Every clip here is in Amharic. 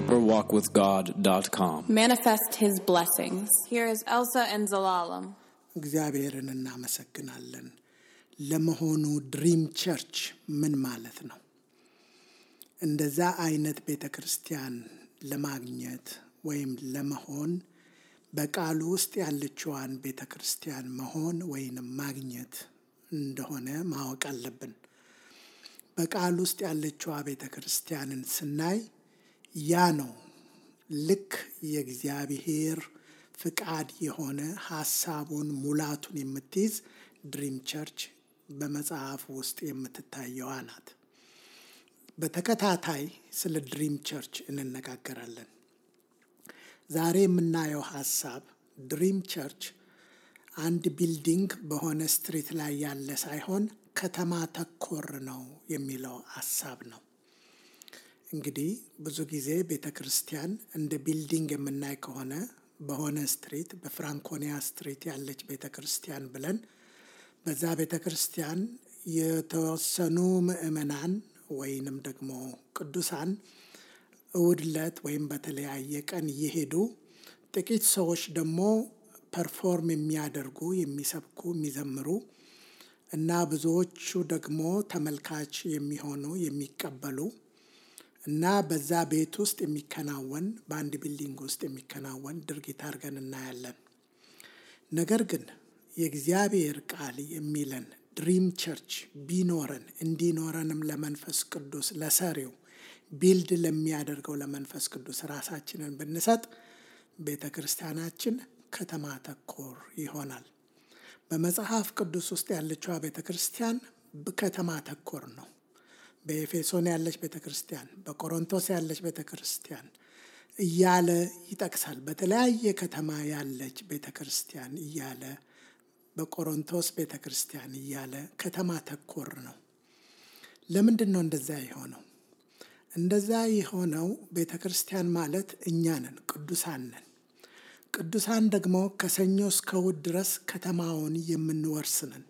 deeperwalkwithgod.com. Manifest His blessings. Here is Elsa and Zelalem. እግዚአብሔርን እናመሰግናለን። ለመሆኑ ድሪም ቸርች ምን ማለት ነው? እንደዛ አይነት ቤተክርስቲያን ለማግኘት ወይም ለመሆን በቃሉ ውስጥ ያለችዋን ቤተክርስቲያን መሆን ወይም ማግኘት እንደሆነ ማወቅ አለብን። በቃሉ ውስጥ ያለችዋ ቤተክርስቲያንን ስናይ ያ ነው ልክ የእግዚአብሔር ፍቃድ የሆነ ሐሳቡን ሙላቱን የምትይዝ ድሪም ቸርች በመጽሐፍ ውስጥ የምትታየው ናት። በተከታታይ ስለ ድሪም ቸርች እንነጋገራለን። ዛሬ የምናየው ሐሳብ ድሪም ቸርች አንድ ቢልዲንግ በሆነ ስትሪት ላይ ያለ ሳይሆን ከተማ ተኮር ነው የሚለው ሐሳብ ነው። እንግዲህ ብዙ ጊዜ ቤተክርስቲያን እንደ ቢልዲንግ የምናይ ከሆነ በሆነ ስትሪት በፍራንኮኒያ ስትሪት ያለች ቤተክርስቲያን ብለን በዛ ቤተክርስቲያን የተወሰኑ ምእመናን ወይንም ደግሞ ቅዱሳን እሁድ ዕለት ወይም በተለያየ ቀን እየሄዱ ጥቂት ሰዎች ደግሞ ፐርፎርም የሚያደርጉ የሚሰብኩ የሚዘምሩ እና ብዙዎቹ ደግሞ ተመልካች የሚሆኑ የሚቀበሉ እና በዛ ቤት ውስጥ የሚከናወን በአንድ ቢልዲንግ ውስጥ የሚከናወን ድርጊት አድርገን እናያለን። ነገር ግን የእግዚአብሔር ቃል የሚለን ድሪም ቸርች ቢኖረን እንዲኖረንም ለመንፈስ ቅዱስ ለሰሪው ቢልድ ለሚያደርገው ለመንፈስ ቅዱስ ራሳችንን ብንሰጥ ቤተክርስቲያናችን ከተማ ተኮር ይሆናል። በመጽሐፍ ቅዱስ ውስጥ ያለችው ቤተክርስቲያን ከተማ ተኮር ነው። በኤፌሶን ያለች ቤተክርስቲያን፣ በቆሮንቶስ ያለች ቤተክርስቲያን እያለ ይጠቅሳል። በተለያየ ከተማ ያለች ቤተክርስቲያን እያለ በቆሮንቶስ ቤተክርስቲያን እያለ ከተማ ተኮር ነው። ለምንድን ነው እንደዛ የሆነው? እንደዛ የሆነው ቤተክርስቲያን ማለት እኛ ነን፣ ቅዱሳን ነን። ቅዱሳን ደግሞ ከሰኞ እስከ እሑድ ድረስ ከተማውን የምንወርስ ነን።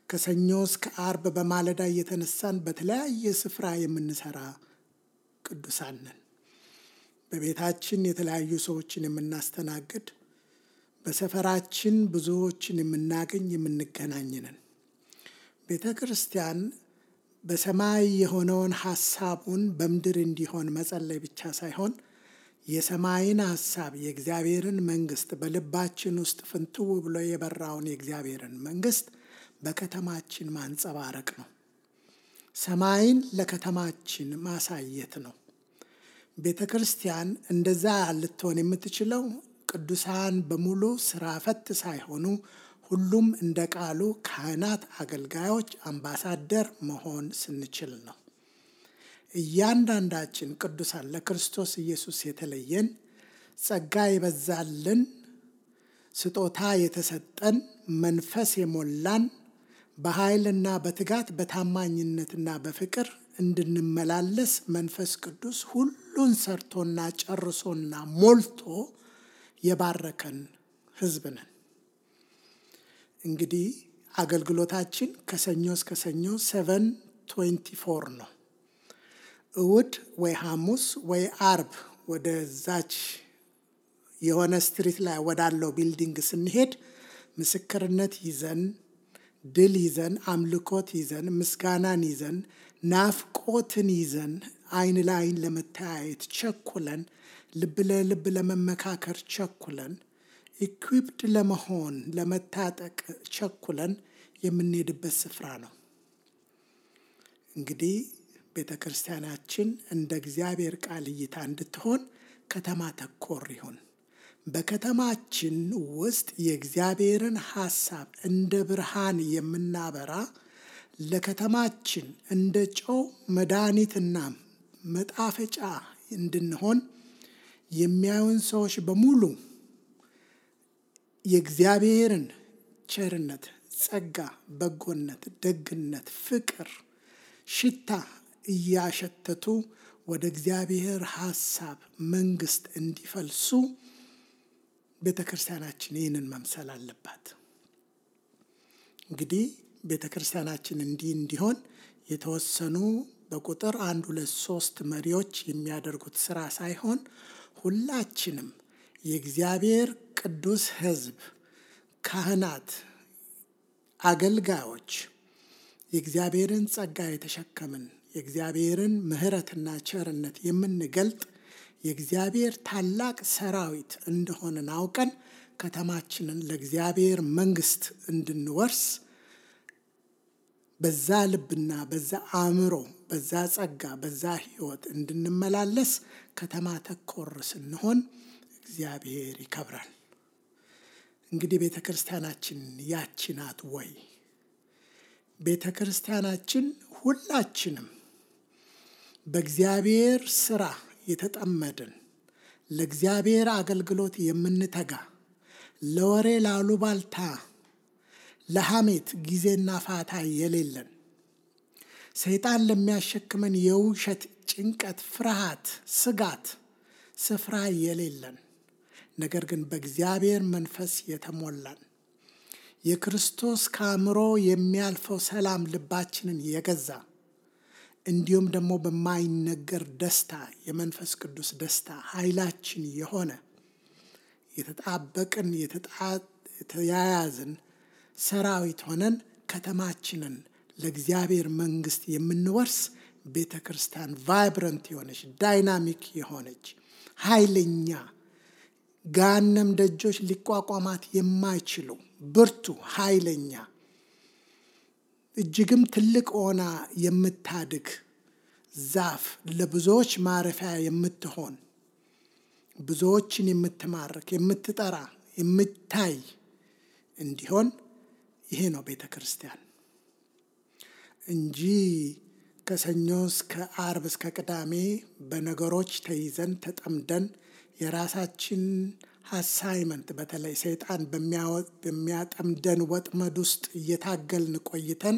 ከሰኞ እስከ ዓርብ በማለዳ እየተነሳን በተለያየ ስፍራ የምንሰራ ቅዱሳን ነን። በቤታችን የተለያዩ ሰዎችን የምናስተናግድ፣ በሰፈራችን ብዙዎችን የምናገኝ የምንገናኝ ነን። ቤተ ክርስቲያን በሰማይ የሆነውን ሐሳቡን በምድር እንዲሆን መጸለይ ብቻ ሳይሆን የሰማይን ሐሳብ የእግዚአብሔርን መንግስት በልባችን ውስጥ ፍንትው ብሎ የበራውን የእግዚአብሔርን መንግስት በከተማችን ማንጸባረቅ ነው። ሰማይን ለከተማችን ማሳየት ነው። ቤተ ክርስቲያን እንደዛ ልትሆን የምትችለው ቅዱሳን በሙሉ ስራ ፈት ሳይሆኑ ሁሉም እንደ ቃሉ ካህናት፣ አገልጋዮች፣ አምባሳደር መሆን ስንችል ነው። እያንዳንዳችን ቅዱሳን ለክርስቶስ ኢየሱስ የተለየን ጸጋ የበዛልን ስጦታ የተሰጠን መንፈስ የሞላን በኃይልና በትጋት በታማኝነትና በፍቅር እንድንመላለስ መንፈስ ቅዱስ ሁሉን ሰርቶና ጨርሶና ሞልቶ የባረከን ሕዝብ ነን። እንግዲህ አገልግሎታችን ከሰኞ እስከ ሰኞ 7:24 ነው። እሁድ ወይ ሐሙስ ወይ ዓርብ ወደዛች የሆነ ስትሪት ላይ ወዳለው ቢልዲንግ ስንሄድ ምስክርነት ይዘን፣ ድል ይዘን፣ አምልኮት ይዘን፣ ምስጋናን ይዘን፣ ናፍቆትን ይዘን፣ አይን ለአይን ለመተያየት ቸኩለን፣ ልብ ለልብ ለመመካከር ቸኩለን፣ ኢኩዊፕድ ለመሆን ለመታጠቅ ቸኩለን የምንሄድበት ስፍራ ነው። እንግዲህ ቤተ ክርስቲያናችን እንደ እግዚአብሔር ቃል እይታ እንድትሆን ከተማ ተኮር ይሁን። በከተማችን ውስጥ የእግዚአብሔርን ሐሳብ እንደ ብርሃን የምናበራ፣ ለከተማችን እንደ ጨው መድኃኒትና መጣፈጫ እንድንሆን የሚያዩን ሰዎች በሙሉ የእግዚአብሔርን ቸርነት፣ ጸጋ፣ በጎነት፣ ደግነት፣ ፍቅር ሽታ እያሸተቱ ወደ እግዚአብሔር ሐሳብ መንግስት እንዲፈልሱ ቤተ ክርስቲያናችን ይህንን መምሰል አለባት። እንግዲህ ቤተ ክርስቲያናችን እንዲሆን የተወሰኑ በቁጥር 1 2 3 መሪዎች የሚያደርጉት ስራ ሳይሆን ሁላችንም የእግዚአብሔር ቅዱስ ሕዝብ፣ ካህናት፣ አገልጋዮች የእግዚአብሔርን ጸጋ የተሸከምን የእግዚአብሔርን ምሕረትና ቸርነት የምንገልጥ የእግዚአብሔር ታላቅ ሰራዊት እንደሆንን አውቀን ከተማችንን ለእግዚአብሔር መንግስት እንድንወርስ በዛ ልብና በዛ አእምሮ በዛ ጸጋ በዛ ሕይወት እንድንመላለስ ከተማ ተኮር ስንሆን እግዚአብሔር ይከብራል። እንግዲህ ቤተ ክርስቲያናችን ያቺ ናት ወይ? ቤተ ክርስቲያናችን ሁላችንም በእግዚአብሔር ስራ የተጠመድን ለእግዚአብሔር አገልግሎት የምንተጋ ለወሬ ላሉባልታ ለሐሜት ጊዜና ፋታ የሌለን ሰይጣን ለሚያሸክመን የውሸት ጭንቀት፣ ፍርሃት፣ ስጋት ስፍራ የሌለን ነገር ግን በእግዚአብሔር መንፈስ የተሞላን የክርስቶስ ከአእምሮ የሚያልፈው ሰላም ልባችንን የገዛ እንዲሁም ደግሞ በማይነገር ደስታ የመንፈስ ቅዱስ ደስታ ኃይላችን የሆነ የተጣበቅን የተያያዝን ሰራዊት ሆነን ከተማችንን ለእግዚአብሔር መንግስት የምንወርስ ቤተ ክርስቲያን ቫይብረንት የሆነች ዳይናሚክ የሆነች ኃይለኛ ገሃነም ደጆች ሊቋቋማት የማይችሉ ብርቱ ኃይለኛ እጅግም ትልቅ ሆና የምታድግ ዛፍ ለብዙዎች ማረፊያ የምትሆን ብዙዎችን የምትማርክ የምትጠራ የምታይ እንዲሆን ይሄ ነው ቤተ ክርስቲያን እንጂ ከሰኞ እስከ ዓርብ እስከ ቅዳሜ በነገሮች ተይዘን ተጠምደን የራሳችን አሳይመንት በተለይ ሰይጣን በሚያጠምደን ወጥመድ ውስጥ እየታገልን ቆይተን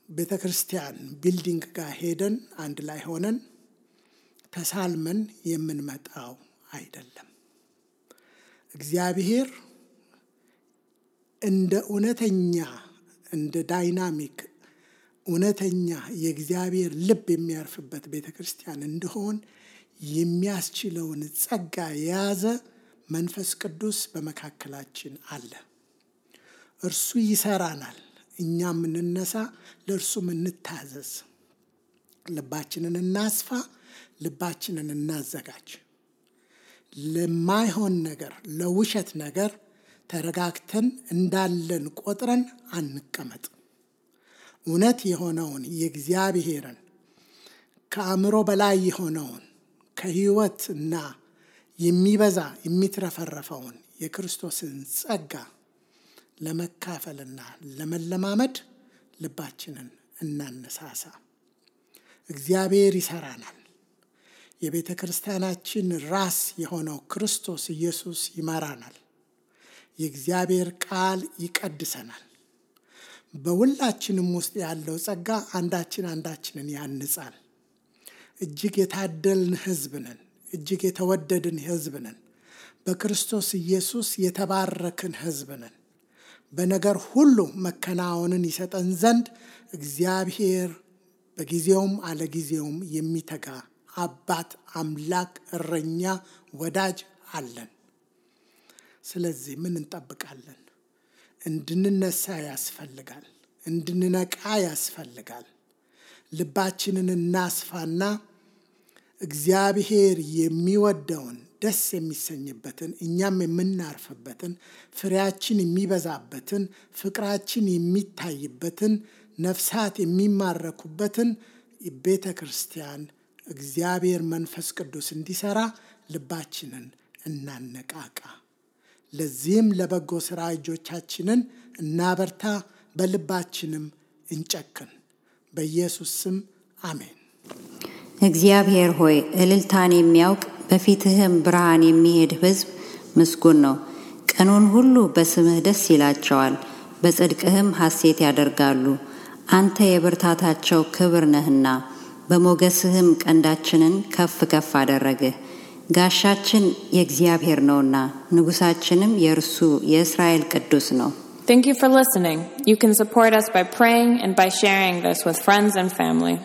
ቤተ ክርስቲያን ቢልዲንግ ጋር ሄደን አንድ ላይ ሆነን ተሳልመን የምንመጣው አይደለም። እግዚአብሔር እንደ እውነተኛ እንደ ዳይናሚክ እውነተኛ የእግዚአብሔር ልብ የሚያርፍበት ቤተ ክርስቲያን እንደሆን የሚያስችለውን ጸጋ የያዘ መንፈስ ቅዱስ በመካከላችን አለ። እርሱ ይሰራናል። እኛም እንነሳ፣ ለእርሱም እንታዘዝ። ልባችንን እናስፋ፣ ልባችንን እናዘጋጅ። ለማይሆን ነገር ለውሸት ነገር ተረጋግተን እንዳለን ቆጥረን አንቀመጥ። እውነት የሆነውን የእግዚአብሔርን ከአእምሮ በላይ የሆነውን ከሕይወትና የሚበዛ የሚትረፈረፈውን የክርስቶስን ጸጋ ለመካፈልና ለመለማመድ ልባችንን እናነሳሳ። እግዚአብሔር ይሰራናል። የቤተ ክርስቲያናችን ራስ የሆነው ክርስቶስ ኢየሱስ ይመራናል። የእግዚአብሔር ቃል ይቀድሰናል። በሁላችንም ውስጥ ያለው ጸጋ አንዳችንን ያንጻል። እጅግ የታደልን ሕዝብ ነን። እጅግ የተወደድን ሕዝብ ነን። በክርስቶስ ኢየሱስ የተባረክን ሕዝብ ነን። በነገር ሁሉ መከናወንን ይሰጠን ዘንድ እግዚአብሔር በጊዜውም አለጊዜውም የሚተጋ አባት፣ አምላክ፣ እረኛ፣ ወዳጅ አለን። ስለዚህ ምን እንጠብቃለን? እንድንነሳ ያስፈልጋል። እንድንነቃ ያስፈልጋል። ልባችንን እናስፋና እግዚአብሔር የሚወደውን ደስ የሚሰኝበትን እኛም የምናርፍበትን ፍሬያችን የሚበዛበትን ፍቅራችን የሚታይበትን ነፍሳት የሚማረኩበትን ቤተ ክርስቲያን እግዚአብሔር መንፈስ ቅዱስ እንዲሰራ ልባችንን እናነቃቃ። ለዚህም ለበጎ ሥራ እጆቻችንን እናበርታ፣ በልባችንም እንጨክን። በኢየሱስ ስም አሜን። እግዚአብሔር ሆይ እልልታን የሚያውቅ በፊትህም ብርሃን የሚሄድ ሕዝብ ምስጉን ነው። ቀኑን ሁሉ በስምህ ደስ ይላቸዋል፣ በጽድቅህም ሐሴት ያደርጋሉ። አንተ የብርታታቸው ክብር ነህና በሞገስህም ቀንዳችንን ከፍ ከፍ አደረግህ። ጋሻችን የእግዚአብሔር ነውና ንጉሳችንም የእርሱ የእስራኤል ቅዱስ ነው። Thank you for listening. You can support us by praying and by sharing this with friends and family.